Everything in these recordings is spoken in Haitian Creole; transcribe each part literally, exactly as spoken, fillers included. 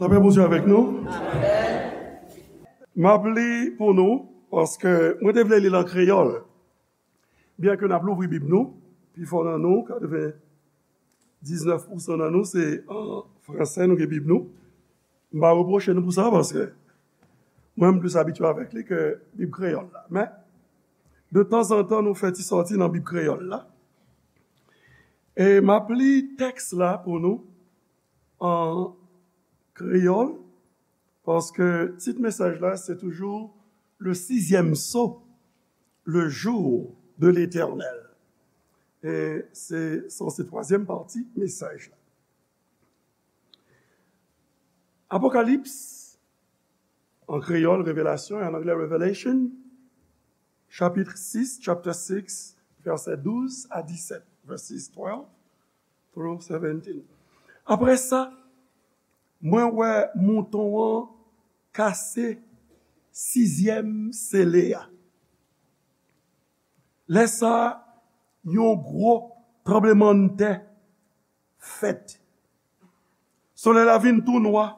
Lapè Bondye avèk nou. M ap li pou nou, paske mwen te vle li l an kreyòl. Byenke n ap louvri Bib nou, pifò nan nou, katrevendiznèf pousan nan nou, se an fransè nou gen Bib nou. M pa repwoche nou pou sa, paske mwen, m plis abitye avèk li ke Bib kreyòl la. Men, de tanzantan, nou fè ti sòti nan Bib kreyòl la. E m ap li tèks la pou nou an kreyòl, paske tit mesaj la, se toujou le sixième sceau, le jour de l'Éternel. E se sanse twazyèm pati mesaj la. Apokalips, an kreyòl, Revelasyon, e an anglè, Revelation, chapit sis, chapter six, vèsè douz a disèt, verses twelve through seventeen. Apre sa, mwen wè mouton an kase sizyèm sele a. Lè sa a, yon gwo tranblemanntè fèt. Solèy la vin tou nwa,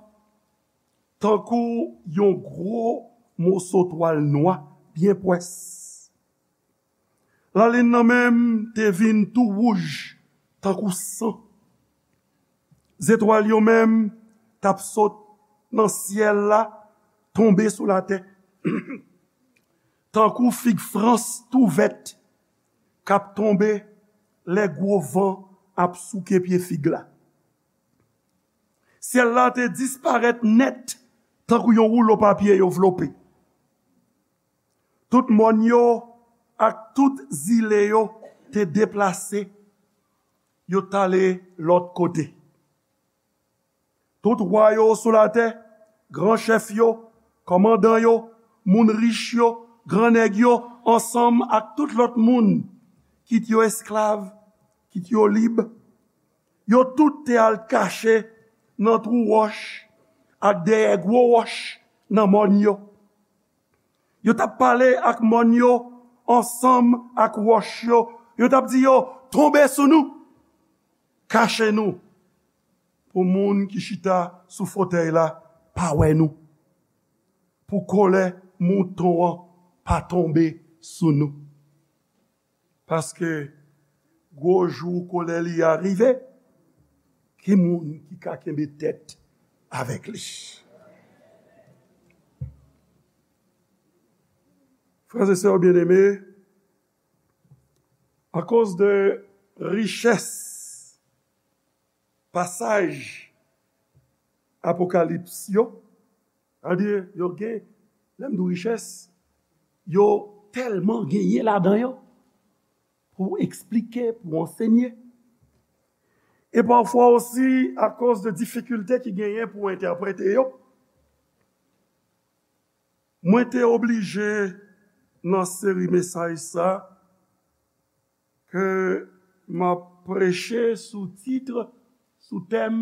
tankou yon gwo moso twal nwa, byen pwès. Lalin nan menm te vin tou wouj, tankou san. Zetwal yo menm t ap sot nan syèl la, tonbe sou latè. Tankou fig frans tou vèt k ap tonbe lè gwo van ap souke pye fig la. Syèl la te disparèt nèt, tankou yon woulo papye yo vlope. Tout mòn yo ak tout zile yo te deplase, yo t ale lòt kote. Tout wa yo sou latè, gran chèf yo, kòmandan yo, moun rich yo, gran nèg yo, ansanm ak tout lòt moun, kit yo esklav, kit yo lib, yo tout te al kache nan twou wòch ak dèyè gwo wòch nan mòn yo. Yo t ap pale ak mòn yo ansanm ak wòch yo. Yo t ap di yo, "Tonbe sou nou! Kache nou! Pou moun ki chita sou fotèy la pa wè nou. Pou kòlè mouton an pa tonbe sou nou." Paske gwo jou kòlè li a rive, ki moun ki ka kenbe tèt avèk li? Frères et sœurs bien-aimés, akoz de richès pasaj Apokalips yo, sa vle di, yo gen, lè m di richès, yo tèlman genyen ladan yo pou eksplike, pou ansenye. E pafwa osi, akoz de difikilte ki genyen pou entèprete yo, mwen te oblije nan seri mesaj sa ke m ap preche sou tit, sou tèm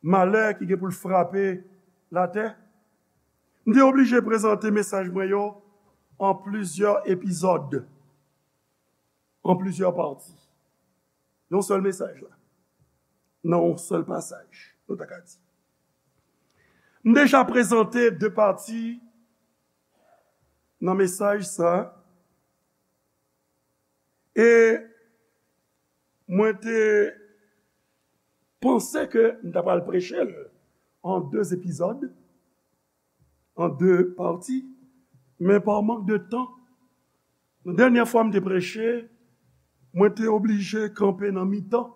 malè ki gen pou l frape latè. M te oblije prezante mesaj mwen yo an plizyè epizòd, an plizyè pati. Yon sèl mesaj la, nan yon sèl pasaj, nou ta ka di. M deja prezante de pati nan mesaj sa, e mwen te panse ke m ta pral preche l an de epizòd, an de pati, men pa mank de tan, nan dènyè fwa m te preche, mwen te oblije kanpe nan mitan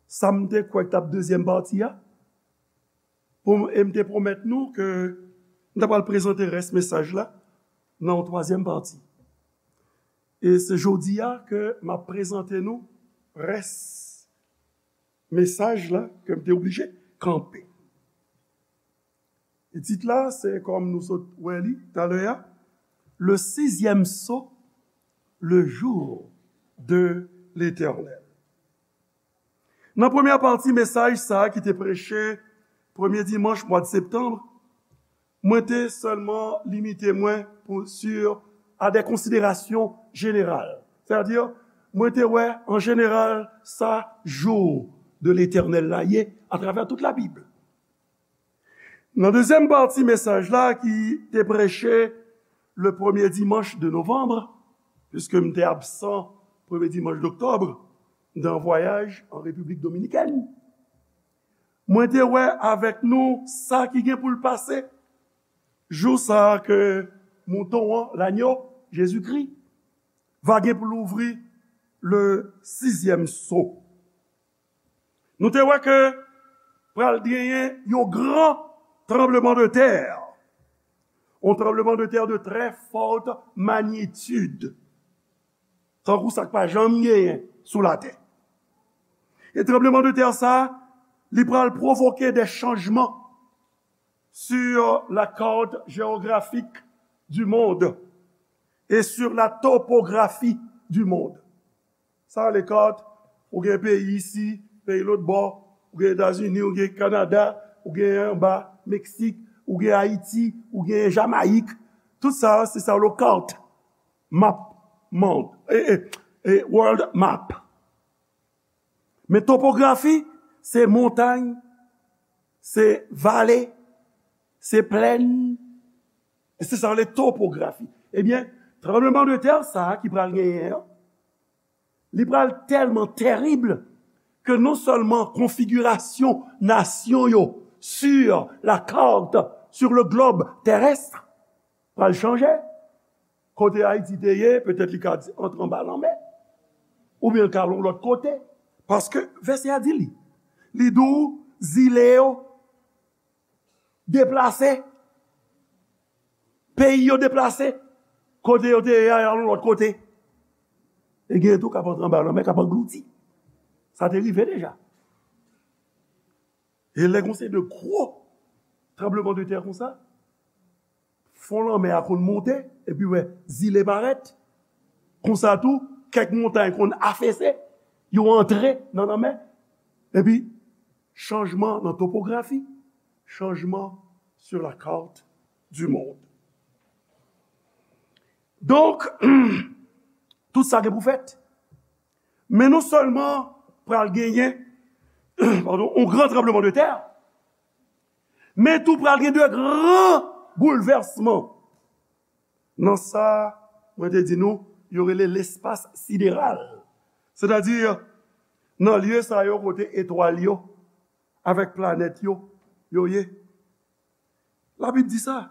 sa m te kwè k t ap dezyèm pati a, pou, e m te pwomèt nou ke m ta pral prezante rès mesaj la nan yon twazyèm pati. E se jodi a ke m ap prezante nou rès mesaj la ke m te oblije kanpe. E tit la, se kòm nou sot wè li talè a, Le sixième sceau, le jour de l'Éternel. Nan premyè pati mesaj sa a ki te preche premye dimanch mwa septanm, mwen te sèlman limite mwen pou, sur, à des considérations générales. Sètadi, mwen te wè, an jeneral, sa jou de Letènèl la ye atravè tout Labib. Nan dezyèm pati mesaj la ki te preche le premye dimanch de novanm, piske m te absan premye dimanch doktòb, m te an vwayaj an Repiblik Dominikèn. Mwen te wè avèk nou sa ki gen pou l pase jou sa a ke mouton an, lanyo, Jezikri, va gen pou l ouvri le sizyèm so. Nou te wè ke pral genyen yon gran tranbleman de tè, yon tranbleman de tè de trè fòt manyitid, tankou sa k pa janm genyen sou latè. E tranbleman de tè sa, li pral pwovoke de chanjman sur la carte géographique du monde et sur la topographie du monde. Sa rele kat, ou gen peyi isi, peyi lòt bò, ou gen Etazini, ou gen Kanada, ou gen anba Meksik, ou gen Ayiti, ou gen Jamayik. Tout sa, se sa rele kat, map, mond, e, e, e, world map. Men topografi, se montay, se vale, se plèn, e se sa rele topografi. Ebyen, tranbleman de tè sa a ki pral genyen an, li pral tèlman tèrib ke non sèlman konfigirasyon nasyon yo sur la carte, sur le globe terrestre, pral chanje. Kote Ayiti te ye, petèt li ka di antre anba lanmè, oubyen l ka al yon lòt kote. Paske vèsè a di li, li di w zile yo deplase, peyi yo deplase, kote yo te ye a, y al yon lòt kote. E gen tou k ap antre anba lanmè, k ap anglouti. Sa te rive deja. E lè gon seri de gwo tranbleman de tè konsa, fon lanmè a konn monte, epi wè zile parèt. Konsa tou, kèk montay konn afese, yo antre nan lanmè. Epi, chanjman nan topografi, chanjman sur la carte du monde. Donk, tout sa gen pou fèt. Men non sèlman pral genyen, padon, yon gran tranbleman de tè, men tou pral gen de gran boulvèsman. Nan sa, mwen te di nou, yo rele lespas sideral. Sètadi, nan lye sa yo kote etwal yo, avèk planèt yo, yo ye. Labib di sa,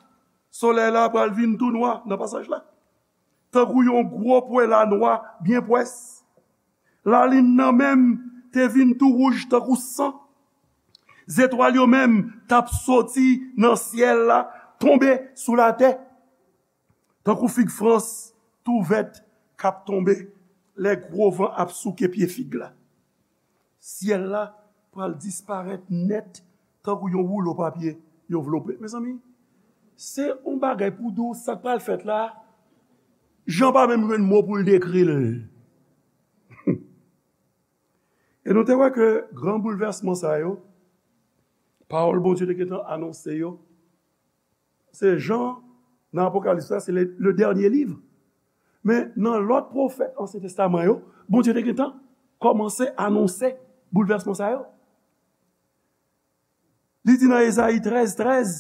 solèy la pral vin tou nwa nan pasaj la, tankou yon gwo pwen lanwa byen pwès. Lalin nan menm te vin tou wouj tankou san. Zetwal yo menm t ap soti nan syèl la, tonbe sou latè, tankou fig frans tou vèt k ap tonbe lè gwo van ap souke pye fig la. Syèl la pral disparèt nèt tankou yon woulo papye yo vlope. Mezanmi, se yon bagay pou di w sa k pral fèt la, Jan pa menm jwenn mo pou l dekri l. E nou te wè ke gran boulvèsman sa yo, pawòl Bondye te gentan anonse yo, se Jan, nan Apokalips la, se le, le dènye liv. Men nan lòt pwofèt Ansyen Testaman yo, Bondye te gentan kòmanse anonse boulvèsman sa yo. Li di nan Ezayi trèz trèz,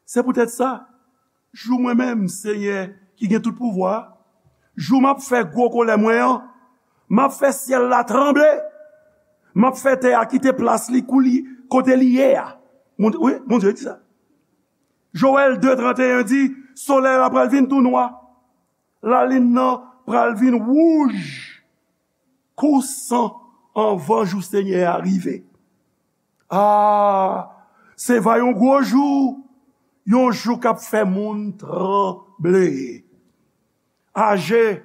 se poutèt sa, jou mwen menm, Senyè ki gen tout pouvwa a, jou m ap fè gwo kòlè mwen an, m ap fè syèl la tranble, m ap fè tè a kite plas li kou li, kote li ye a. Bondye, wi, Bondye di sa. Jowèl de tranteyen di, solèy la pral vin tou nwa, lalin nan pral vin wouj kou san anvan jou Senyè a rive. A, se va yon gwo jou, yon jou k ap fè moun tranble. Aje,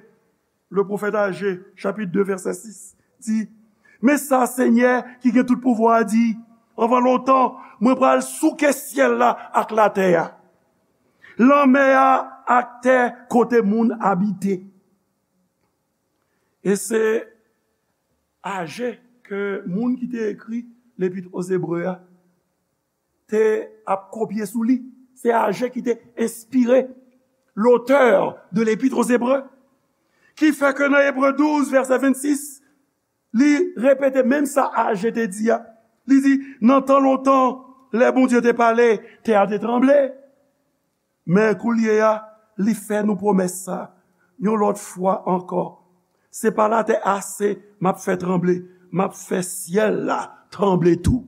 le pwofèt Aje, chapit de, vèsè sis, di, men sa Senyè ki gen tout pouvwa a di, anvan lontan, mwen pral souke syèl la ak latè a, lanmè a ak tè kote moun abite. E se Aje ke moun ki te ekri Lepit o Zebre a te ap kopye sou li. Se Aje ki te enspire, l'auteur de l'Épître aux Hébreux. Ki fè ke nan Ebre douz, vèsè vennsis, li repete menm sa Aje te di a. Li di, nan tan lontan, Lè Bondye te pale, tè a te tranble. Men koulye a, li fè nou pwomès sa, yon lòt fwa ankò. Se pa latè ase m ap fè tranble, m ap fè syèl la tranble tou.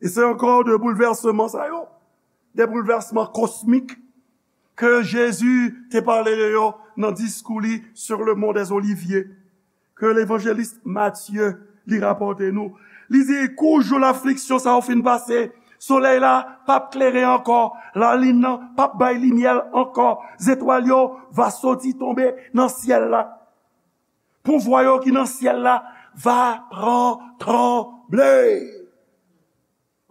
E se ankò de boulvèsman sa yo, de boulvèsman kosmik ke Jezi te pale de yo nan diskou li sur le mont des Oliviers, ke levanjelis Matye li rapòte nou. Li di, kou jou lafliksyon sa yo fin pase, solèy la p ap klere ankò, lalin nan p ap bay limyè l ankò, zetwal yo va soti tonbe nan syèl la. Pouvwa yo ki nan syèl la va pran tranble.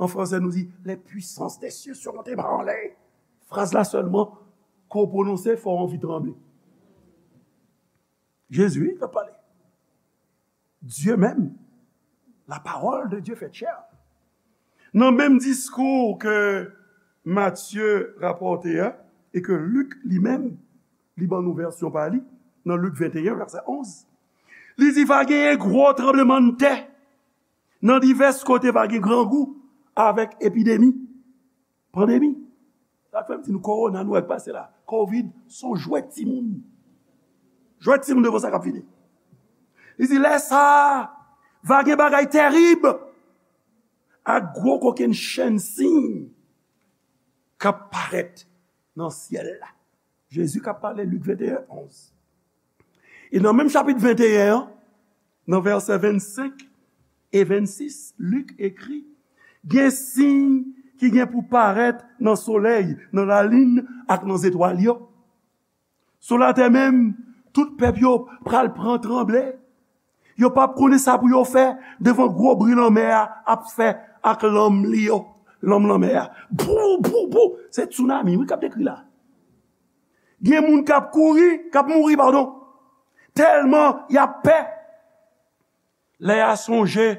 An fransè, nou di, les puissances des cieux seront ébranlées. Fraz la sèlman, ke w pwononse, fò w anvi tranble. Jezi, wi, k ap pale. Dye menm. La parole de Dieu faite chair. Nan menm diskou ke Matye rapòte a, e ke Lik li menm, li ban nou vèsyon pa li, nan Lik venteyen, vèsè onz, li di, va genyen gwo tranblemanntè. Nan divès kote, va gen grangou avèk epidemi, pandemi. Sa k fè m di nou, kowona nou wè k pase la, kovid, se yon jwèt timoun. Jwèt timoun devan sa k ap vini. Li di, lè sa a, va gen bagay terib ak gwo kokennchenn siy k ap parèt nan syèl la. Jezi k ap pale, Lik venteyen onz. E nan menm chapit venteyen an, nan vèsè vennsenk e vennsis, Lik ekri, gen siy ki gen pou parèt nan solèy, nan lalin ak nan zetwal yo. Sou latè menm, tout pèp yo pral pran tranble. Yo p ap konnen sa pou yo fè devan gwo bri lanmè a ap fè ak lanm li yo, lanm lanmè a. Bou, bou, bou. Se tsunami, wi, k ap dekri la. Gen moun k ap kouri, k ap mouri, padon. Tèlman y ap pè. Lè y a sonje,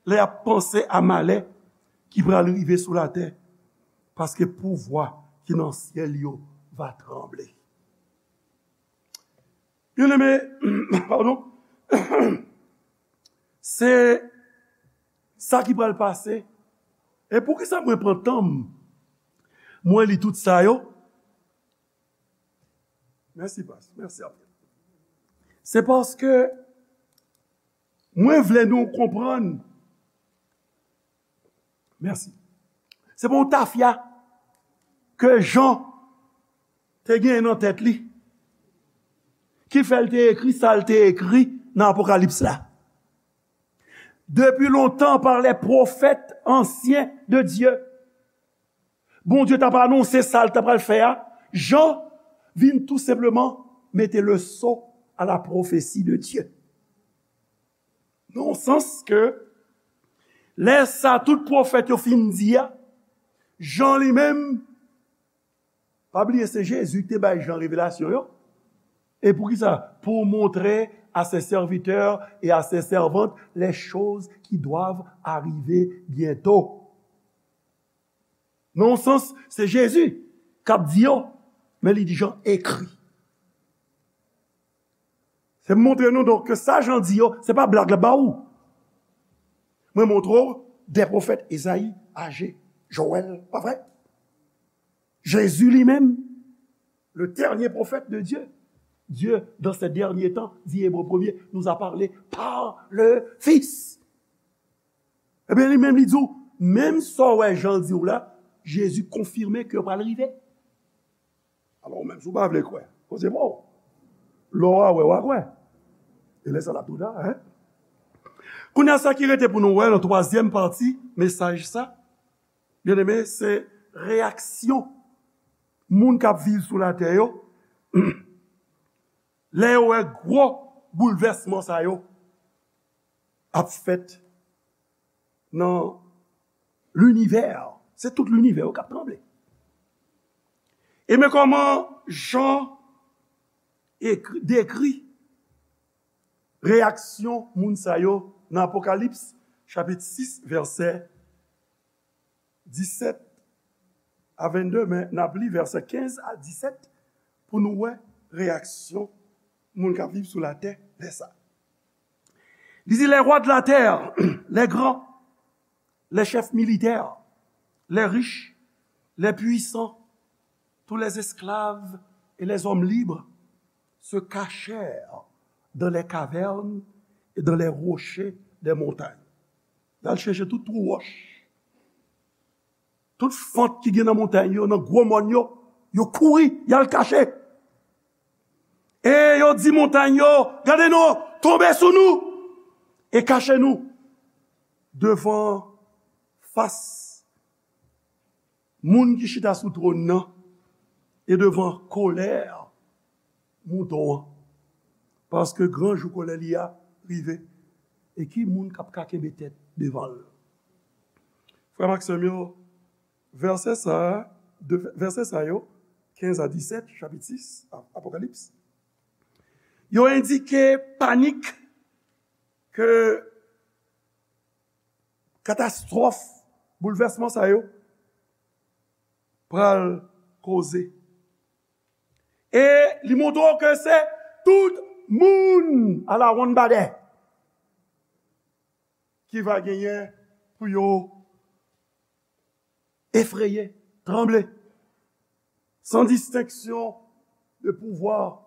lè y ap panse a malè ki pral rive sou latè, paske pouvwa ki nan syèl yo va tranble. Byeneme, padon, se sa ki pral pase. E poukisa mwen pran tan m, mwen li tout sa yo? Mèsi, pas. Mèsi anpil. Se paske mwen vle nou konprann. Mèsi. Se pa yon tafya ke Jan te genyen nan tèt li ki fè l te ekri sa l te ekri nan Apokalips la. Depuis longtemps, par les prophètes anciens de Dieu, Bondye t ap anonse sa l t ap pral fè a, Jan vin tou senpleman mete le sceau à la prophétie de Dieu. Nan yon sans ke lè sa tout pwofèt yo fin di a, Jan li menm, pa bliye se Jezi ki te bay Jan revelasyon yo. E poukisa? Pour montrer à ses serviteurs et à ses servantes les choses qui doivent arriver bientôt. Nan yon sans, se Jezi k ap di yo, men li di Jan ekri. Se montre nou donk ke sa Jan di yo, se pa blag l ap ba ou. Mwen montre w de pwofèt Ezayi, Aje, Jowèl, pa vre? Jezi li menm, le dernier prophète de Dieu. Dieu, dans ces derniers temps, dit Hébreu premier, nous a parlé par le Fils. Ebyen, li menm, li di w, menm sa w wè Jan di w la, Jezi konfime ke yo pral rive. Alò, ou menm, si w pa vle kwè, koze pa w. Lè w a wè, w a kwè. E lè sa l ap twò ta, en? Kounye a, sa ki rete pou nou wè nan twazyèm pati mesaj sa, byeneme, se reyaksyon moun k ap viv sou latè yo lè yo wè gwo boulvèsman sa yo ap fèt nan linivè. Se tout linivè yo k ap tranble. E men kòman Jan ekri, dekri reyaksyon moun sa yo nan Apokalips, chapit sis, vèsè disèt a vennde, men n ap li vèsè kenz a disèt pou nou wè reyaksyon moun k ap viv sou latè lè sa. Li di, les rois de la terre, les grands, les chefs militaires, les riches, les puissants, tous les esclaves et les hommes libres se cachèrent dans les cavernes et dans les rochers des montagnes. Y al chèche tout twou wòch, tout fant ki gen nan montay yo, nan gwo mòn yo, yo kouri, y al kache. E yo di montay yo, gade non, tonbe sou nou e kache nou devan fas moun ki chita sou twòn nan e devan kolè mouton an. Paske gran jou kolè li a rive. E ki moun k ap ka kenbe tèt devan l? Frè m ak sè m yo, vèsè sa a, de, vèsè sa yo, kenz a disèt, chapit sis, Ap-, Apokalips, yo endike panik ke katastwòf, boulvèsman sa yo pral koze. E li montre w ke se tout moun alawonnbadè ki va genyen pou yo efreye, tranble, san distenksyon de pouvwa,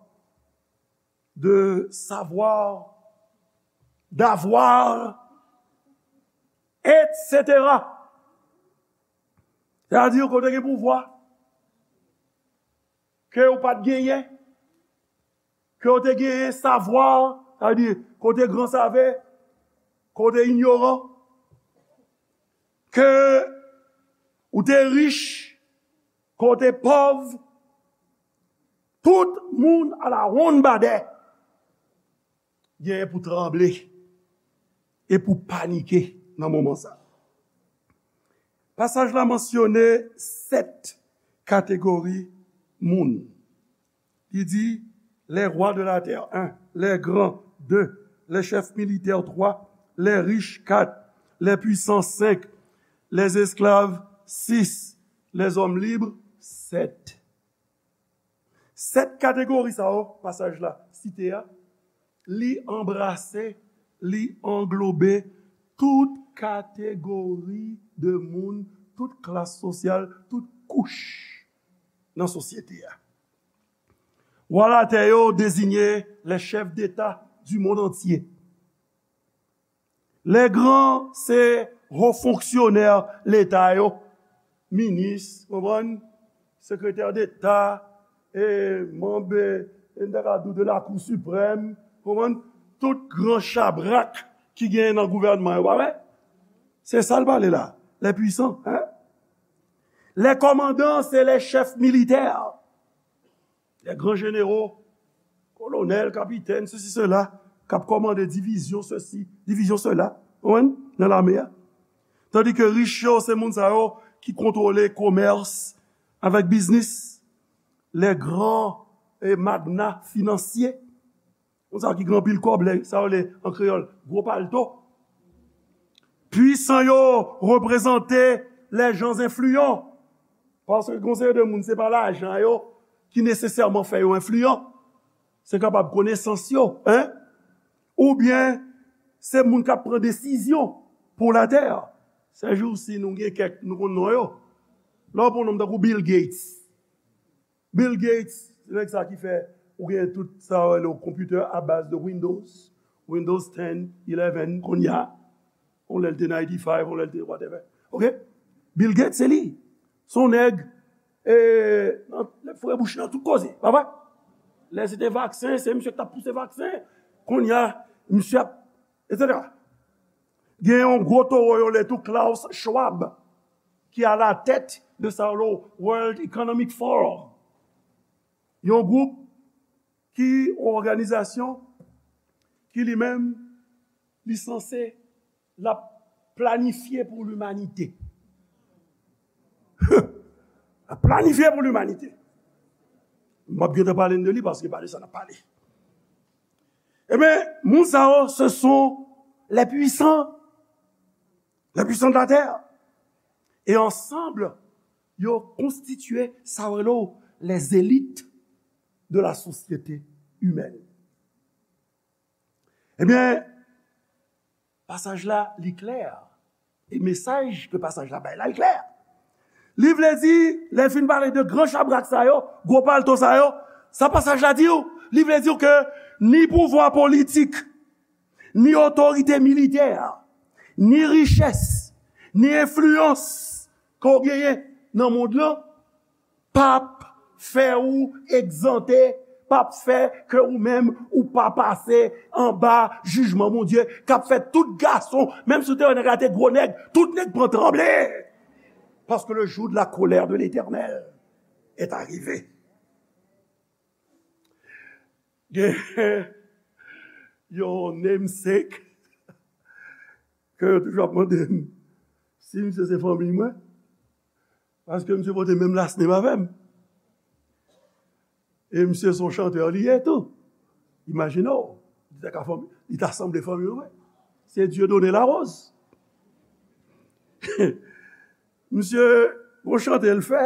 de savwa, davwa, etsetera. Sètadi, ke w te gen pouvwa ke ou pa t genyen, ke w te genyen savwa, sètadi, ke w te gran save, ke w te inyoran, ke ou te rich, ke w te pòv, tout moun alawonnbadè genyen pou tranble e pou panike nan moman sa a. Pasaj la mansyone sèt kategori moun. Li di, les rois de la terre, un, les grands, deux, les chefs militaires, trois, les riches, quatre, les puissants, cinq, les esclaves, six, les hommes libres, sept. Sèt kategori sa yo, pasaj la site a, li anbrase, li anglobe tout kategori de moun, tout klas sosyal, tout kouch nan sosyete a. Wa latè yo deziye les chefs d'État du monde entier. Les grands, se wo fonksyonè Leta yo, minis, konprann, sekretè deta, e manm, e, n ta ka di w de Lakou Siprèm, konprann, tout gran chabrak ki genyen nan gouvènman yo, pa vre? Se sa l pale la, les puissants, hein? Les commandants, se les chefs militaires. Les grands généraux, kolonèl, kapitèn, sesi, sela, k ap kòmande divizyon sesi, divizyon sela, konprann, nan lame a. Tandi ke rich yo, se moun sa yo ki kontwole komès avèk biznis. Les grands, eh, magnats financiers. Moun sa yo ki gen anpil kòb, lè sa yo le an kreyòl, gwo palto. Pwisan yo reprezante les gens influents. Paske gen yon seri de moun, se pa lajan yo ki nesesèman fè yo enfliyan. Se kapab konesans yo, hein? Oubyen se moun k ap pran desizyon pou latè. Sèjousi, nou gen kèk, nou konn non yo. Lè w pran yon nonm tankou Bill Gates. Bill Gates, se nèg sa ki fè ou gen tout sa yo rele w konpitè a baz de Windows, Windows ten, eleven, kounye a. Yon lè l te ninety-five, yon lè l te whatever. Ok? Bill Gates, se li. Se yon nèg, e, nan, lè frè bouch nan tout koze, pa vre? Lè se te vaksen, se misye ki t ap pouse vaksen. Kounye a, misye ap, etsetera. Gen yon gwo towo yo le tou, Klaus Schwab, ki a la tèt de sa yo le World Economic Forum. Yon gwoup ki, yon òganizasyon ki li menm, li sanse, l ap planifye pou limanite. L ap planifye pou limanite. M ap gentan pale n de li paske pa de sa n ap pale. Ebyen, moun sa yo, ce sont les puissants, les puissants de la terre. E ansanm, yo konstitye sa yo rele les élites de la société humaine. Ebyen, pasaj la, li klè. E mesaj ke pasaj la bay la, l klè. Li vle di, lè l fin pale de gran chabrak sa yo, gwo palto sa yo, sa pasaj la di w, li vle di w ke ni pouvwa politik, ni otorite militè, ni richès, ni enfliyans ke w genyen nan mond lan, p ap fè ou egzante, p ap fè ke ou menm ou pa pase anba jijman Bondye k ap fè tout gason, menm si w te wè nèg la te gwo nèg, tout nèg pran tranble. Parce que le jour de la colère de l'Éternel est arrivé. Gen yon namesake ke yo toujou ap mande m si misye se fanmi mwen, paske misye pote menm last name avè m. E misye se yon chantè li ye tou. Imajine w, li ta ka fanmi, li ta sanble fanmi mwen. Se Dieudonné Larose. Misye, yon chante l fè.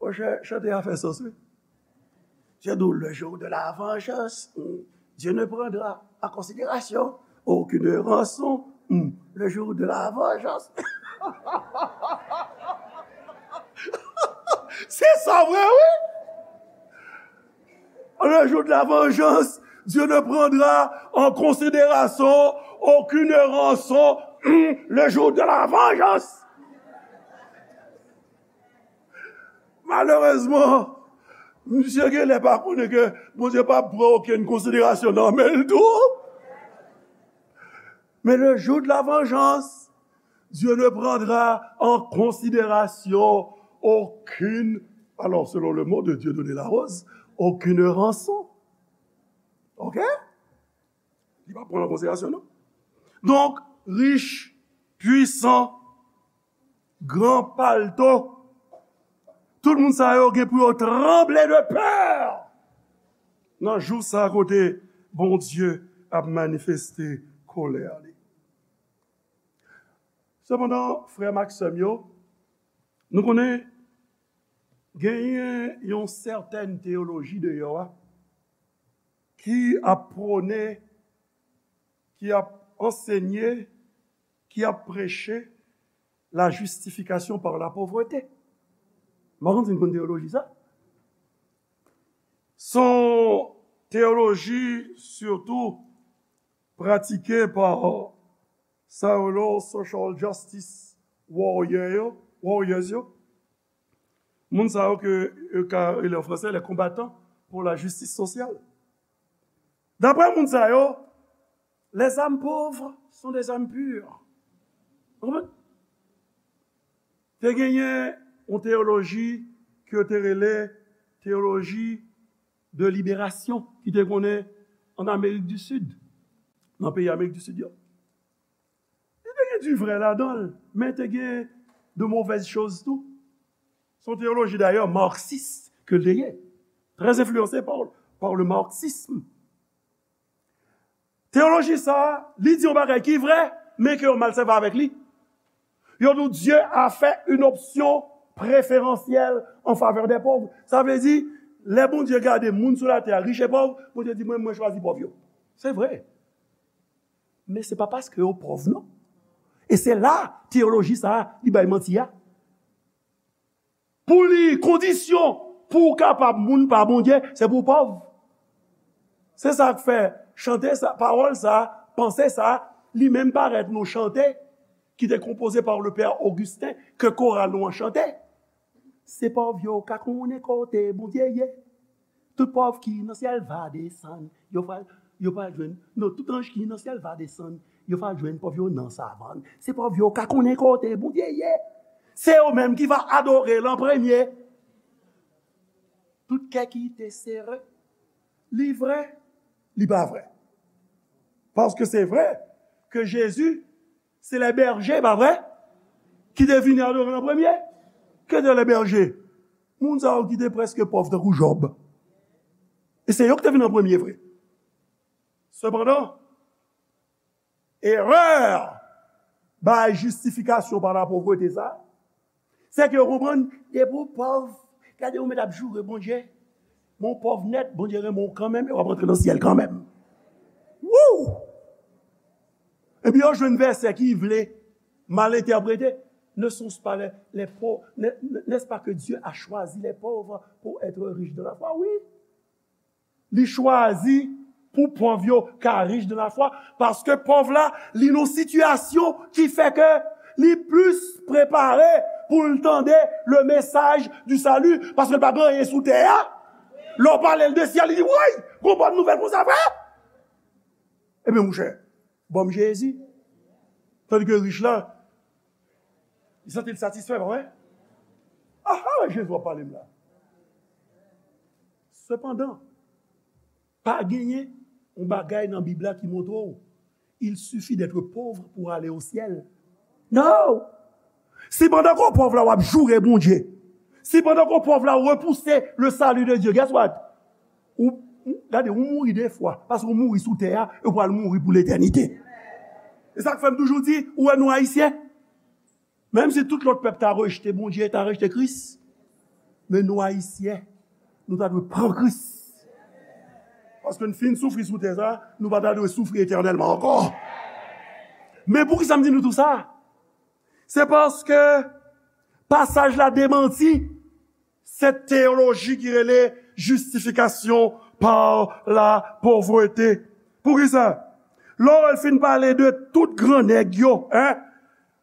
Monchè, chante a fè sans, wi. Dieu nous le jour de la vengeance, hmm, Dieu ne prendra en considération aucune rançon, hmm, le jour de la vengeance. Se sa vre, wi. Le jour de la vengeance, Dieu ne prendra en considération aucune rançon, hmm, le jour de la vengeance. Malerezman, misye genlè pa konnen ke Bondye p ap pran okenn konsiderasyon nan men l tou. Mais le jour de la vengeance, Dieu ne prendra en considération aucune, alors selon le mot de Dieudonné Larose, aucune rançon. OK? Li p ap pran an konsiderasyon, non. Donk, rich, pwisan, gran palto, tout moun sa yo gen pou yo tranble de pè nan jou sa kote Bondye ap manifeste kolè li. Sepandan, frè m ak sè m yo, nou konnen genyen yon sètèn teyoloji deyò a ki ap pwone, ki ap ansenye, ki ap preche la justification par la pauvreté. M pa konn si n konn teyoloji sa. Se yon teyoloji sitou pratike pa sa yo rele social justice warrior yo, warriors yo. Moun sa yo ke yo ka rele an fransè les combattants pour la justice sociale. Daprè moun sa yo, les âmes pauvres sont des âmes pures. Ou konprann? Te genyen yon teyoloji ke yo te rele teyoloji de liberasyon ki te konnen an Amerik di Sid, nan peyi Amerik di Sid yo. Li te gen di vrè ladan l, men te gen de movèz choz tou. Se yon teyoloji dayè maksis ke l te ye, trè enfliyanse pa, pa le marxisme. Teyoloji sa a, li di yon bagay ki vrè, men ke yo mal sèvi avèk li. Yo di w, Dieu a fait une option préférentielle en faveur des pauvres. Sa vle di, lè Bondye gade moun sou latè a, rich e pòv, Bondye di, mwen, mwen chwazi pòv yo. Se vre. Men se pa paske yo pòv, non. E se la, teyoloji sa a, li bay manti a. Pou li, kondisyon pou w kapab moun pa Bondye, se pou w pòv. Se sa k fè chante sa, pawòl sa, panse sa, li menm parèt nan yon chante ki te konpoze pa le pè Augustin, ke koral nou an chante. Se pòv yo ka konnen kote Bondye ye. Tout pòv ki nan syèl va desann, yo va, yo va jwenn. Non, tout anj ki nan syèl va desann, yo va jwenn pòv yo nan savann. Se pòv yo ka konnen kote Bondye ye. Se yo menm ki va adore l an premye. Tout kè ki te sere, li vrè, li pa vrè. Paske se vrè ke Jezi se lè bèje, pa vrè? Ki te vini adore l an premye. Ke te lè bèje? Moun sa yo ki te prèske pòv tankou Jòb. E se yo ki te vin an premye vre. Sepandan, erè bay jistifikasyon pa la povrete sa, se ke yo konprann, depi w pòv, gade ou mèt ap joure Bondye, men w pòv nèt, Bondye renmen w kanmenm, e w ap rantre nan syèl kanmenm. Wouw! Epi yo jwenn vèsè ki vle mal entèprete. Ne sont-ce pas les, les pauvres, ne- ne- n'est-ce pas que Dieu a choisi les pauvres pour être riches dans la foi? Wi. Li chwazi pou pòv yo ka rich dans la foi, paske pòv la, li nan sitiyasyon ki fè ke li plis prepare pou l tande le message du salut, paske l pa gen anyen sou tè a. Lè w pale l de syèl, li di, woy, gon bòn nouvèl konsa vre? Ebyen, monchè, ban m Jezi. Tandike rich la, li santi l satisfè, pa vre? Aha, Jezi w ap pale m la. Sepandan, pa genyen yon bagay nan Bib la ki montre w il suffit d'être pauvre pour aller au ciel. Non! Si pandan ke w pòv la w ap joure Bondye, si pandan ke w pòv la w repouse le salut de Dieu, guess what? Ou, ou- gade, ou mouri de fwa, paske ou mouri sou tè a, e ou pral mouri pou letènite. E sa k fè m toujou di, ou wè nou Ayisyen, menm si tout lòt pèp ta rejte Bondye, ta rejte Kris, men nou Ayisyen, nou ta dwe pran Kris. Paske n fin soufri sou tè sa, nou pa ta dwe soufri etènèlman ankò. Men poukisa m di nou tou sa? Se paske pasaj la demanti cette théologie ki rele justification par la pauvreté. Poukisa? Lè w fin pale de tout gran nèg yo, en,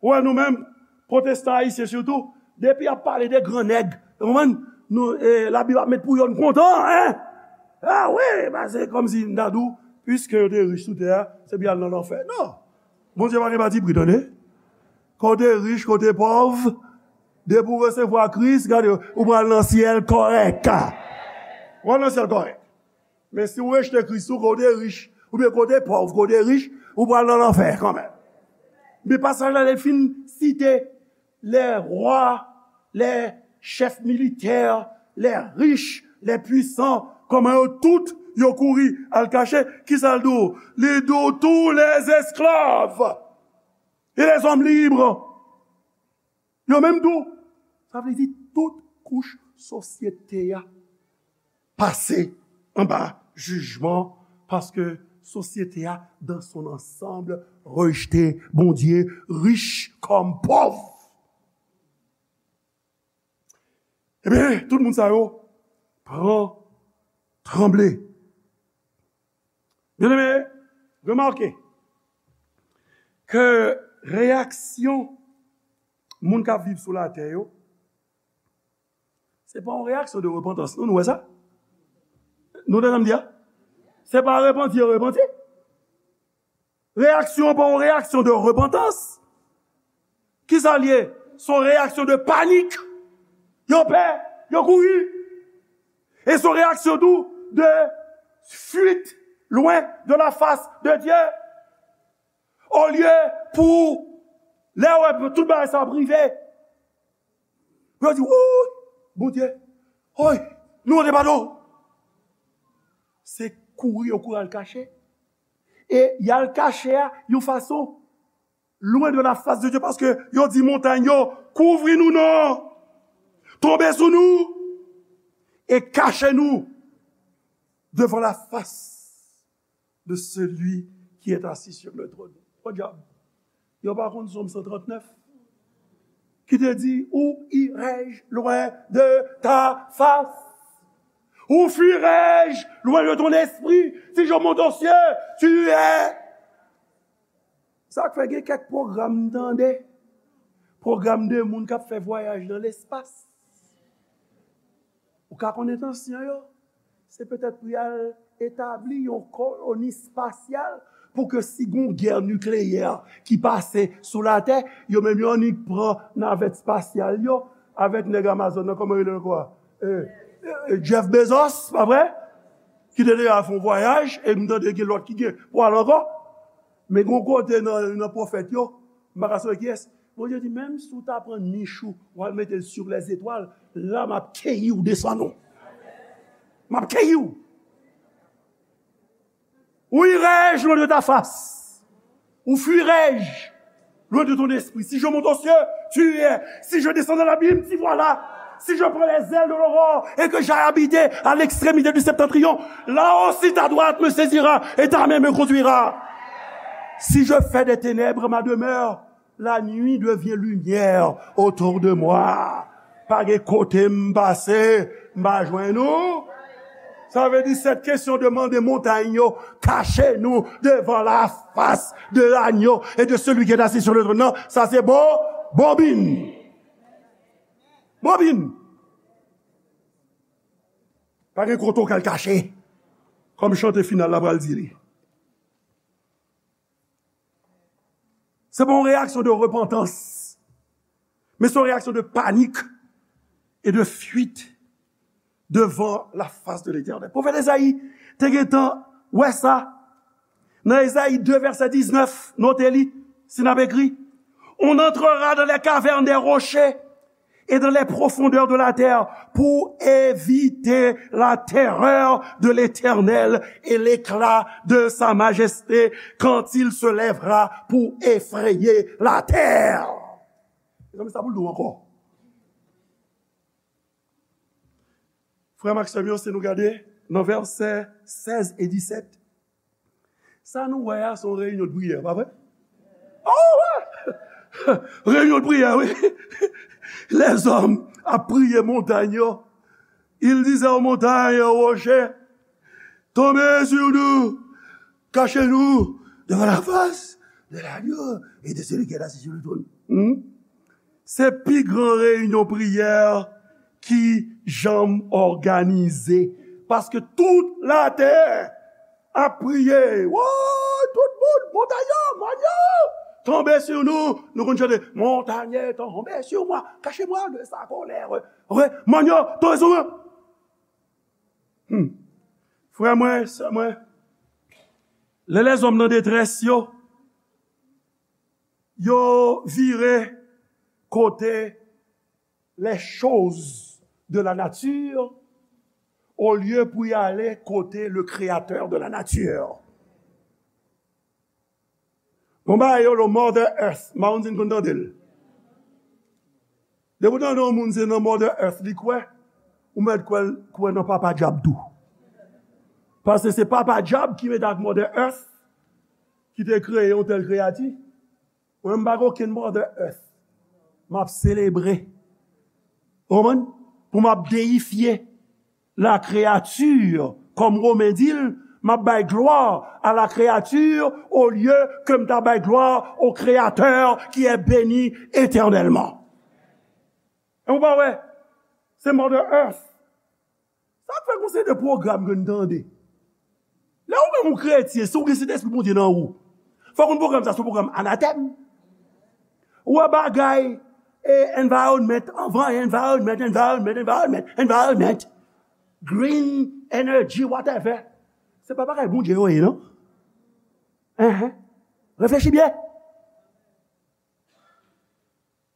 ou wè nou menm, pwotestan ayisyen sitou, depi y ap pale de gran nèg, ou konprann? Nou, eh, Labib ap met pou yo, n kontan, en? Ah wi, paske kòmsi n ta di w, piske yo te rich sou tè a, se pou y al nan lanfè. Non. Bondye pa gen patipri, tande. Kote rich, kote pòv, depi w resevwa Kris, gade, ou pral nan syèl kòrèk. Ou pral nan syèl kòrèk. Men si w rejte Kris ou, kote rich, oubyen kote pòv, kote rich, ou pral nan lanfè kanmenm. Men pasaj la, li fin site les rois, les chefs militaires, les riches, les puissants, kòman yo tout, yo kouri al kache. Kisa l di w? Li di w tous les esclaves et les hommes libres. Yo menm tou. Sa vle di tout kouch sosyete a pase anba jijman, paske sosyete a, dans son ensemble, rejte Bondye, rich kòm pòv. Ebyen, tout moun sa yo pran tranble. Byeneme, remake ke reyaksyon moun k ap viv sou latè yo, se pa yon reyaksyon de repantans. Nou, nou wè sa? Nou tande sa m di a? Se pa repanti yo repanti. Reyaksyon an pa yon reyaksyon de repantans. Kisa l ye? Se yon reyaksyon de panik. Yo pè, yo kouri. E se yon reyaksyon tou de fuite loin de la face de Dieu. Olye pou lè w wè tout bagay sa ap rive, pou yo di, woy, Bondye, woy, nou mande padon. Se kouri yo kouri al kache. E y al kache a yon fason loin de la face de Dieu, paske yo di montany yo, kouvri nou non, tonbe sou nou, e kache nou devant la face de celui qui est assis sur le trône. Podyab, yo pa konn Sòm san trant nèf ki te di, où irai-je loin de ta face? Où fuirai-je loin de ton esprit? Si je monte aux cieux, tu es. Sa k fè gen kèk pwogram m tande, pwogram de moun k ap fè vwayaj nan lespas. Ou ka konn entansyon yo, se petèt pou y al etabli yon koloni espasyal, pou ke si gon gè nikleyè ki pase sou latè, yo menm yo annik pran navèt espasyal yo avèk nèg Amazon nan, kòman rele l ankò a? Eh, eh, Jeff Bezos, pa vre? Ki te deja fè yon vwayaj, e m tande gen lòt ki gen pou al ankò. Men gon kote nan, nan pwofèt yo, m pa ka sonje kiyès, Bondye di, menm si w ta pran nich ou, w al mete l sou lèzetwal, la m ap keyi w desann ou. M ap keyi w. Où irai-je loin de ta face? Où fuirai-je loin de ton esprit? Si je monte aux cieux, tu y es. Si je descends dans l'abîme, t'y voilà. Si je prends les ailes de l'aurore et que j'aille habiter à l'extrémité du septentrion, là aussi ta droite me saisira et ta main me conduira. Si je fais des ténèbres ma demeure, la nuit devient lumière autour de moi. Pa gen kote m pase, m pa jwenn ou. Sa vle di, cette question de mande montagne yo, cache nous devant la face de l'agneau et de celui qui est assis sur le trône. Non, sa se bon, bobin. Bobin. Pa gen kote w ka al kache. Kòm chante final la pral di li. Se pa yon reyaksyon de repantans, men se yon reyaksyon de panik e de fuit devant la face de l'Éternel. Pwofèt Ezayi te gentan wè sa. Nan Ezayi de, vèsè diznèf, note li, si n ap ekri, on entrera dans les cavernes des rochers et dans les profondeurs de la terre pour éviter la terreur de l'Éternel et l'éclat de sa majesté quand il se lèvera pour effrayer la terre. Mezanmi, sa pou l di w ankò. Frè m ak sè m yo, si nou gade nan vèsè sèz e disèt, sa nou wè a, se yon reyinyon de priyè, pa vre? Oh, wi! Reyinyon de priyè, wi. Lèzòm ap priye montay yo. Il disait aux montagnes, aux rochers, tombez sur nous, cachez-nous devant la face de l'agneau et de celui qui est assis sur le trône. Hmm? Se pi gran reyinyon priyè ki janm òganize. Paske tout latè ap priye. Woy, tout moun, montay yo, mòn yo, tonbe sou nou. Nou konn chante, montagne, tombez sur moi, cachez-moi de sa colère. Mòn yo, tonbe sou mwen. Hmm. Frè mwen, sè mwen, lè lèzòm nan detrès yo, yo vire kote les choses de la nature, olye pou y ale kote le créateur de la nature. Bon, bagay yo lo Mother Earth, m pa konn si n konn tande l. Depi w tande yon moun se nan Mother Earth li kwè, ou mèt kwè, kwè nan Papa Dyab tou. Paske se Papa Dyab ki mete ak Mother Earth, ki te kreye yon tèl kreyati. Mwen, m pa gen okenn Mother Earth. M ap selebre. Ou konprann? Pou m ap deyifye la créature, kòm Women di l, m ap bay glwa a la créature olye ke m ta bay glwa au Créateur qui est béni éternellement. E ou pa wè, se Mother Earth. Sa k fè gon seri de pwogram ke n tande. Lè ou menm ou kretyen, si ou gen Sentespri Bondye nan ou, fò w konn pwogram sa, se yon pwogram anatèm. Ou wè bagay, e, environment, anvan, environment, environment, environment, environment, green energy, whatever. Se pa bagay Bondye yo ye, non? Enhen. Reflechi byen.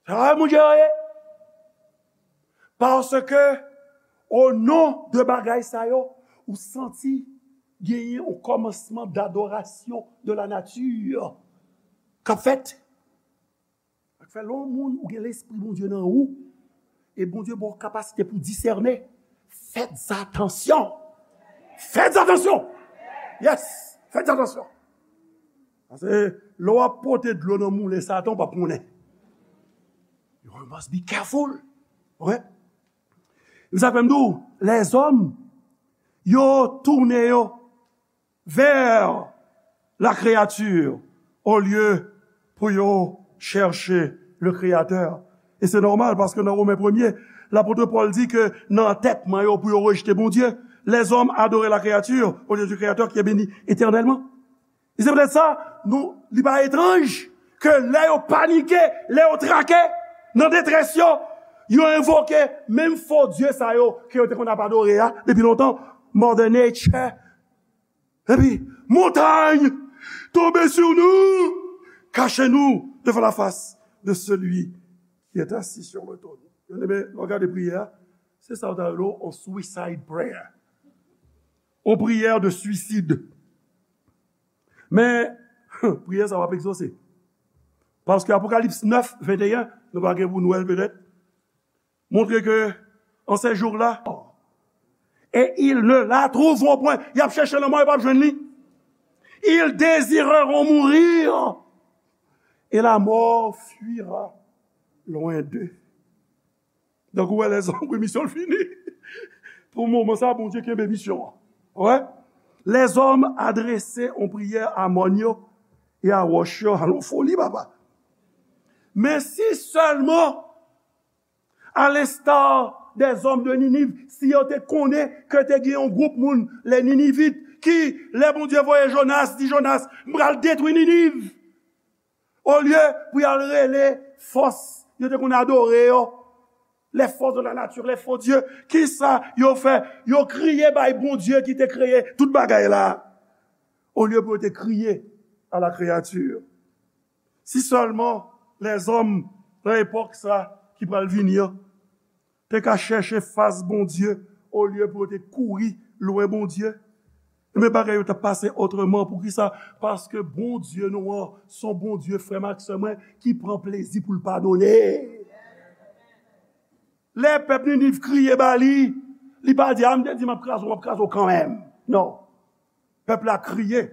Sa moun yo ye. Paske, o non de bagay sa yo, ou santi genyen yon kòmansman dadorasyon de la nati k ap fèt. Sa k fè lè yon moun ou gen Lespri Bondye nan ou, e Bondye ba w kapasite pou disène, fèt atansyon. Fèt atansyon. Yes, fèt atansyon. Paske lè w ap pote dlo nan moulen Satan, ou p ap konnen. You must be careful. Ok? E sa k fè m di w, lèzòm, yo tounen yo vers la créature au lieu pou yo chèche le Créateur. E se nòmal, paske nan Women premye, lapot Pòl di ke nan antètman yo pou yo rejte Bondye, les hommes adoraient la créature au lieu du Créateur qui est béni éternellement. E se poutèt sa, nou, li pa etranj ke lè yo panike, lè yo trake, nan detrès yo, yo envoke menm fo dye sa yo ke yo te konn ap adore a depi lontan, Mother Nature. Epi, montagne, tombez sur nous, cachez-nous devant la face de celui qui est assis sur le trône. Byeneme, lè w gade priyè a, se sa yo ta rele w yon suicide prayer. Yon priyè de suisid. Men, priyè sa p ap egzose. Paske Apokalips nèf, venteyen, nou pa gen pou nou wè l petèt, montre ke, en ces jours-là, et ils ne la trouveront point. Y ap chèche l anmò, yo p ap jwenn li. Ils désireront mourir, et la mort fuira loin d'eux. Donk, ou wè, lèzòm, wi, misyon l fini. Pou moman sa, Bondye kenbe misyon an. Wè? Lèzòm adrese yon priyè a mòn yo e a wòch yo. Alon foli, papa. Men si sèlman, à l'instar des hommes de Ninive, si yo te konnen ke te gen yon gwoup moun, les Ninivites, ki, lè Bondye voye Jonas, di Jonas, "M pral detwi Niniv." Olye pou y al rele fòs yo te konn adore yo, les forces de la nature, les faux dieux, kisa yo fè? Yo kriye bay Bondye ki te kreye tout bagay la, olye pou yo te kriye à la créature. Si sèlman lèzòm nan epòk sa ki pral vini an te ka chèche fas Bondye olye pou yo te kouri lwen Bondye, men bagay yo t ap pase otreman. Poukisa? Paske Bondye nou an se yon Bondye, frè m ak sè mwen, ki pran plezi pou l padone. Lè pèp Niniv kriye ba li, li pa di, "A, m te di m ap kraze w, m ap kraze w kanmenm." Non. Pèp la kriye.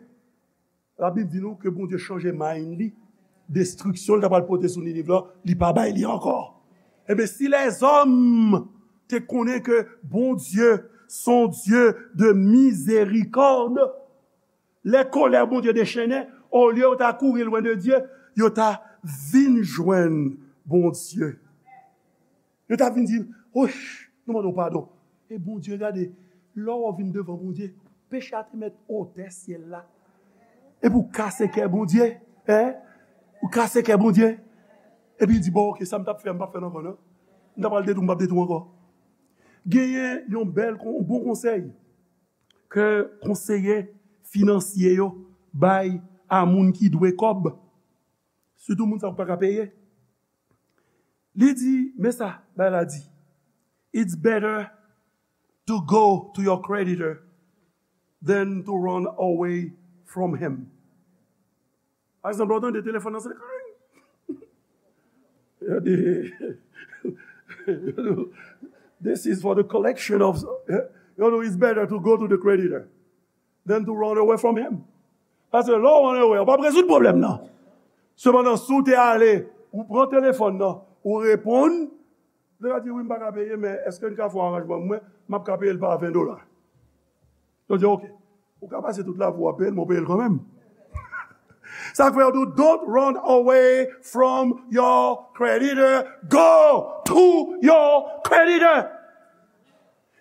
Labib di nou ke Bondye chanje mind li. Destriksyon l ta pral pote sou Niniv la, li pa bay li ankò. Ebyen, si lèzòm te konnen ke Bondye se yon Dye de mizerikòd, lè kolè Bondye dechennen, olye yo ta kouri lwen de Dye, yo ta vin jwenn Bondye. Yo ta vin di, "Oy, nou mande w padon." E Bondye, gade, lè w vin devan Bondye, peche a te mèt otè syèl la. Epi w kase kè Bondye, en? Ou kase kè Bondye. Epi l di, "Bon, oke, sa m t ap fè, m p ap fè l ankò, non. M ta pral detwi, m p ap detwi ankò." Genyen yon bèl, yon bon konsèy ke konseye finansye yo bay a moun ki dwe kòb, sitou moun sa yo ki pa ka peye. Li di, men sa, bay la di, "It's better to go to your creditor than to run away from him." Pa egzanp, lè w tande telefòn nan sone, yo di, "This is for the collection of," yo di, "It's better to go to the creditor than to run away from him." Paske lè w run away, ou p ap rezoud pwoblèm nan. Sepandan, si w te ale, ou pran telefòn nan, ou reponn, li va di, "Wi, m pa ka peye, men èske n ka fè yon aranjman? Mwen, m ap ka peye l pa ven dola." Yo di, "Oke." Ou ka pase tout lavi w ap peye l, men w peye l kanmenm. Sa k fè yo di w, "Don't run away from your creditor. Go to your creditor."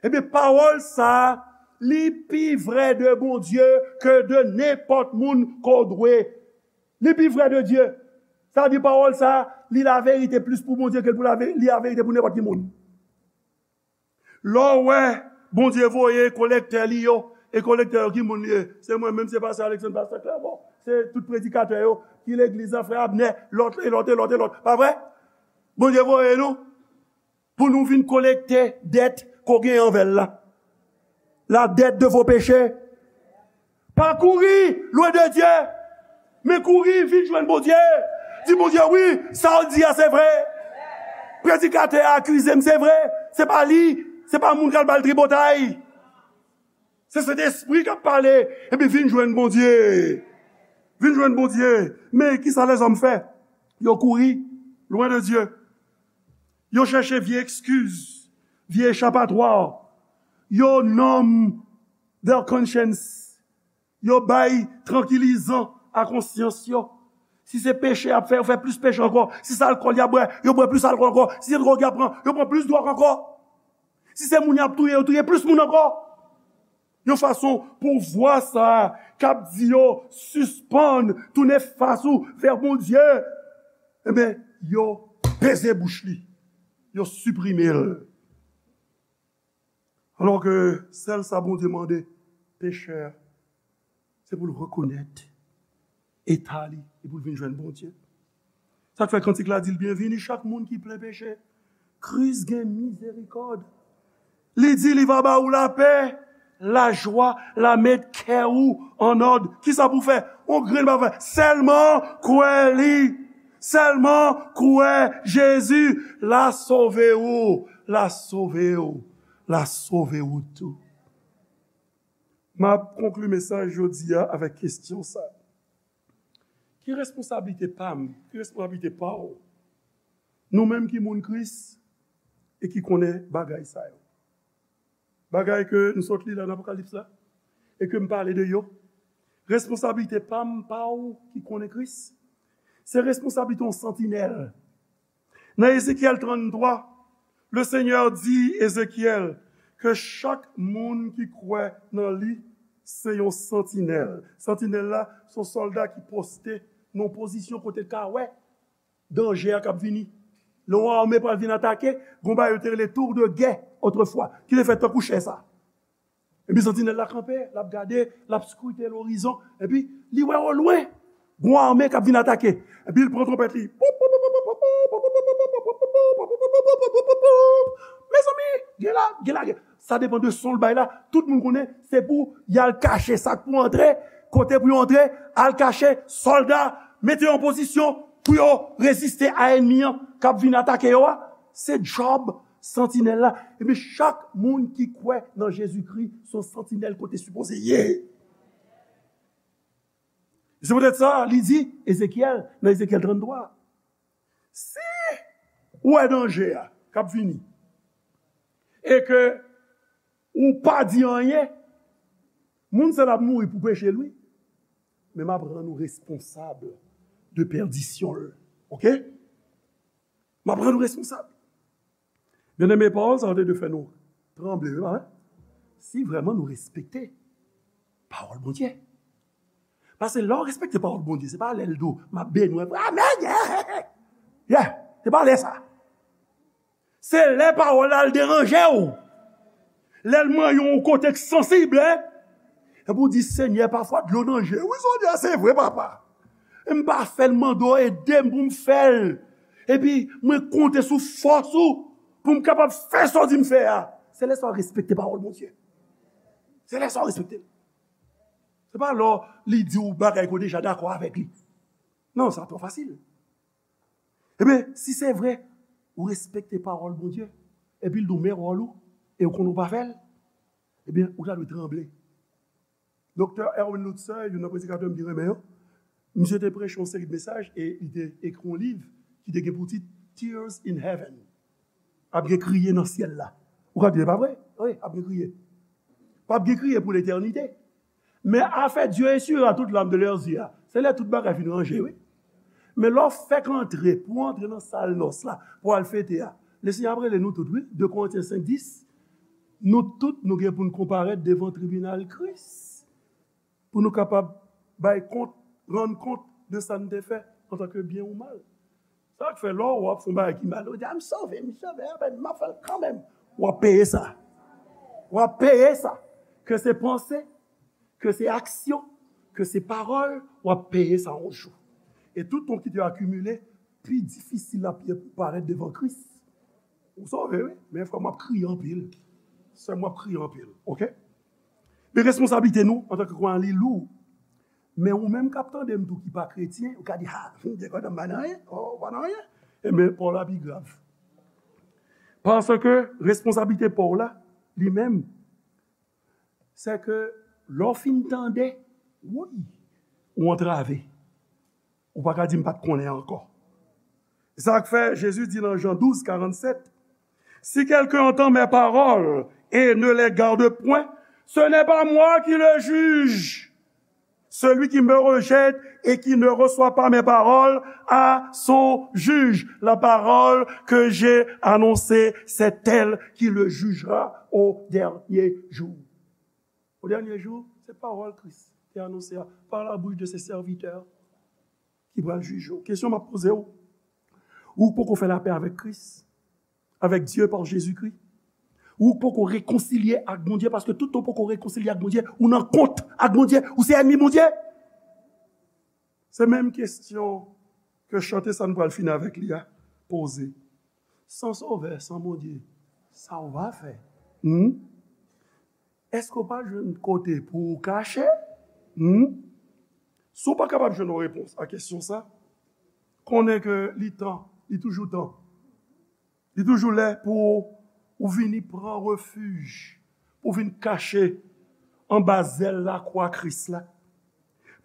Ebyen, pawòl sa a, li pi vrè de Bondye ke de nenpòt moun ke w dwe. Li pi vrè de Dye. Sa vle di pawòl sa a, li laverite plis pou Bondye ke l pou lave-, li laverite pou nenpòt ki moun. Lè w wè Bondye voye kolektè li yo, e kolektè yo ki moun li ye? Se mwen menm, se pastè Alexandre, pastè Clermont, se tout predikatè yo ki legliz la, frè Abner, lòt, e lòt, e lòt, e lòt. Pa vre? Bondye voye nou pou nou vin kolekte dèt ke w gen anvè l la. La dette de vos péchés. Pa kouri lwen de Dye, men kouri vin jwenn Bondye. Di Bondye, "Wi, sa w di a se vre. Predikatè a akize m, se vre. Se pa li, se pa moun k al ba l tripotay. Se Sentespri k ap pale." Epi vin jwenn Bondye. Vin jwenn Bondye. Men kisa lèzòm fè? Yo kouri lwen de Dye. Yo chèche vye ekskiz, vye echapatwa. Yo numb their conscience. Yo bay trankilizan a konsyans yo. Si se peche y ap fè, yo fè plis peche ankò. Si se alkòl y ap bwè, yo bwè plis alkòl ankò. Si se dwòg y ap pran, yo pran plis dwòg ankò. Si se moun y ap touye, yo touye plis moun ankò. Yon fason pou vwa sa a k ap di yo sispann tounen fas ou vè Bondye, ebyen, yo peze bouch li, yo siprime l. Alò ke sèl sa Bondye mande pechè a, se pou l rekonèt eta li e pou l vin jwenn Bondye. Sa k fè kantik la di l, "Byenvini chak moun ki plen peche. Kris gen mizerikòd." Li di li va ba ou lapè, lajwa, l a met kè ou an òd. Kisa pou fè? On grenn pa fè. Sèlman kwè li. Sèlman kwè Jezi, l a sove ou, l a sove ou, l a sove ou tou. M ap konkli mesaj jodi a avèk kesyon sa. Ki responsablite pa m? Ki responsablite pa w? Nou menm ki moun Kris e ki konnen bagay sa yo. Bagay ke nou sot li la nan Apokalips la, e ke m pale de yo. Responsablite pa m, pa w ki konnen Kris, se responsablite yon santinèl. Nan Ezekyèl tranntwa, le Senyè di Ezekyèl ke chak moun ki kwè nan li se yon santinèl. Santinèl la, se yon sòlda ki poste nan yon pozisyon kote l ka wè danje a k ap vini. Lè yon ame pral vin atake, gon bagay yo te rele tour de guet otrefwa, ki te fèt tankou chè sa. Epi santinèl la kanpe, l ap gade, l ap skrite lorizon, epi li wè olwen gon ame k ap vin atake. Epi l pran twonpèt li. Mezanmi, gen la, gen la, gen. Sa depann de son l bay la. Tout moun konnen, se pou y al kache sa k pou antre, kote pou yo antre, al kache, sòlda, mete yo an pozisyon pou yo reziste a ènmi an k ap vin atake yo a. Se djòb santinèl la. Epi chak moun ki kwè nan Jezikri, se yon santinèl kote sipoze ye. Se poutèt sa, li di, Ezekyèl, nan Ezekyèl tranntwa, si w wè danje a k ap vini, e ke ou pa di anyen, moun sa l ap mouri pou peche l, wi. Men m ap rann ou responsab de pèdisyon l. Oke? M ap rann ou responsab. Byeneme, pawòl sa yo te dwe fè nou tranble, wi, pa vre? Si vrèman nou respekte pawòl Bondye. Paske lè w respekte pawòl Bondye, se pa lè l di w, "M ap beni w," amèn, yeah, yeah, se pa lè sa. Se lè pawòl la al deranje w. Lè l manyen w yon kote k sansib, en. Epi w di, "Senyè, pafwa dlo nan je." Wi, Senyè, se vre, papa. E m pa fè l mande w ede m pou m fè l. Epi mwen konte sou fòs ou pou m kapab fè sa w di m fè a. Se lè sa w respekte pawòl Bondye. Se lè sa w respekte l. Se pa lè li di w bagay ke w deja dakò avèk li. Non, sa twò fasil. Ebyen, si se vre, ou respekte pawòl Bondye, epi l di w men wòl ou, e ou konnen ou pa fè l, ebyen, ou ta dwe tranble. Doktè Erwin Lutzer, youn nan predikatè m byen renmen yo, misye te preche yon seri de mesaj e li te ekri yon liv ki te gen pou tit Tears in Heaven. Ap gen kriye nan syèl la. Ou ka di, "E pa vre?" Wi, ap gen kriye. P ap gen kriye pou letènite. Men afè Dieu essuiera toutes larmes de leurs yeux a, se lè tout bagay fin ranje, wi. Men lè w fèk antre, pou w antre nan sal nòs la, pou w al fete a, Lesenyè ap rele nou tout, wi. De Korentyen senk dis, nou tout, nou gen pou n konparèt devan tribinal Kris, pou nou kapab bay kont, rann kont de sa n te fè antanke byen ou mal. Sa k fè lè w ap fè yon bagay ki mal, ou di, "A, m sove, m sove, a, m ap fè l kanmenm." W ap peye sa. W ap peye sa. Ke se panse, ke se aksyon, ke se pawòl, w ap peye sa yon jou. E tout kont ki te akimile, pi difisil l ap ye pou parèt devan Kris. Ou sove, wi, men frè m, w ap kriye anpil. Sè m, w ap kriye anpil, oke? Men responsablite nou antanke kwayan, li lou. Men ou menm k ap tande m tou ki pa kretyen, ou ka di, "Ha, m te kontan, m pa nan anyen, oh, ou pa nan anyen." Ebyen, pa w la pi grav. Paske responsablite pa w la, li menm, se ke lè w fin tande, woy, ou antrave. Ou pa ka di m pa t konnen ankò. Se sa k fè Jezi di nan Jan douz, karannsèt, "Si quelqu'un entend mes paroles et ne les garde point, ce n'est pas moi qui le juge. Celui qui me rejette et qui ne reçoit pas mes paroles a son juge. La parole que j'ai annoncée, c'est elle qui le jugera au dernier jour." Au dernier jour, se pawòl Kris te anonse a, par la bouche de ses serviteurs, ki pral jije w. Kesyon m ap poze w, ou poko fè lapè avèk Kris, avèk Dye pa Jezikri? Ou poko rekonsilye ak Bondye? Paske toutan w poko rekonsilye ak Bondye, ou nan kont ak Bondye, ou se ènmi Bondye. Se menm kesyon ke chante sa n pral fini avèk li a poze. San Sovè, san Bondye, sa w va fè? Hmm? Èske w pa jwenn kote pou w kache? Hmm? Si w pa kapab jwenn yon repons a kesyon sa, konnen ke li tan, li toujou tan. Li toujou lè pou ou vini pran refij, pou vin kache anba zèl lakwa Kris la.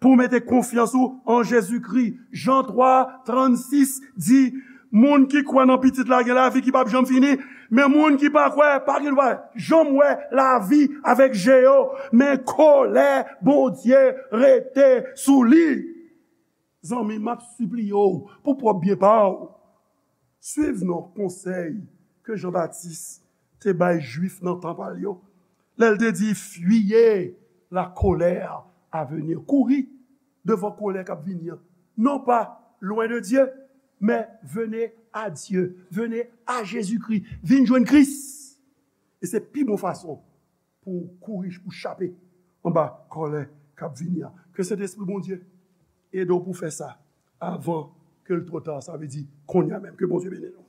Pou w mete konfyans ou an Jezikri. Jan twa, trannsis di, moun ki kwè nan Pitit la gen lavi ki p ap janm fini, men moun ki pa kwè pa gen dwa janm wè lavi avèk je yo, men kòlè Bondye rete sou li. Zanmi, m ap sipliye w pou pwòp byen pa w. Swiv non konsèy ke Jan Batis te bay Jwif nan tan pa l yo. Lè l te di, fuyez la colère à venir. Kouri devan kòlè k ap vini an. Non pas loin de Dieu, mais venez à Dieu, venez à Jésus-Christ. Vin jwenn Kris. E se pi bon fason pou w kouri, pou w chape anba kòlè k ap vini an. Ke Sentespri Bondye ede w pou w fè sa avan ke l twò ta. Sa vle di kounye a menm. Ke Bondye beni nou.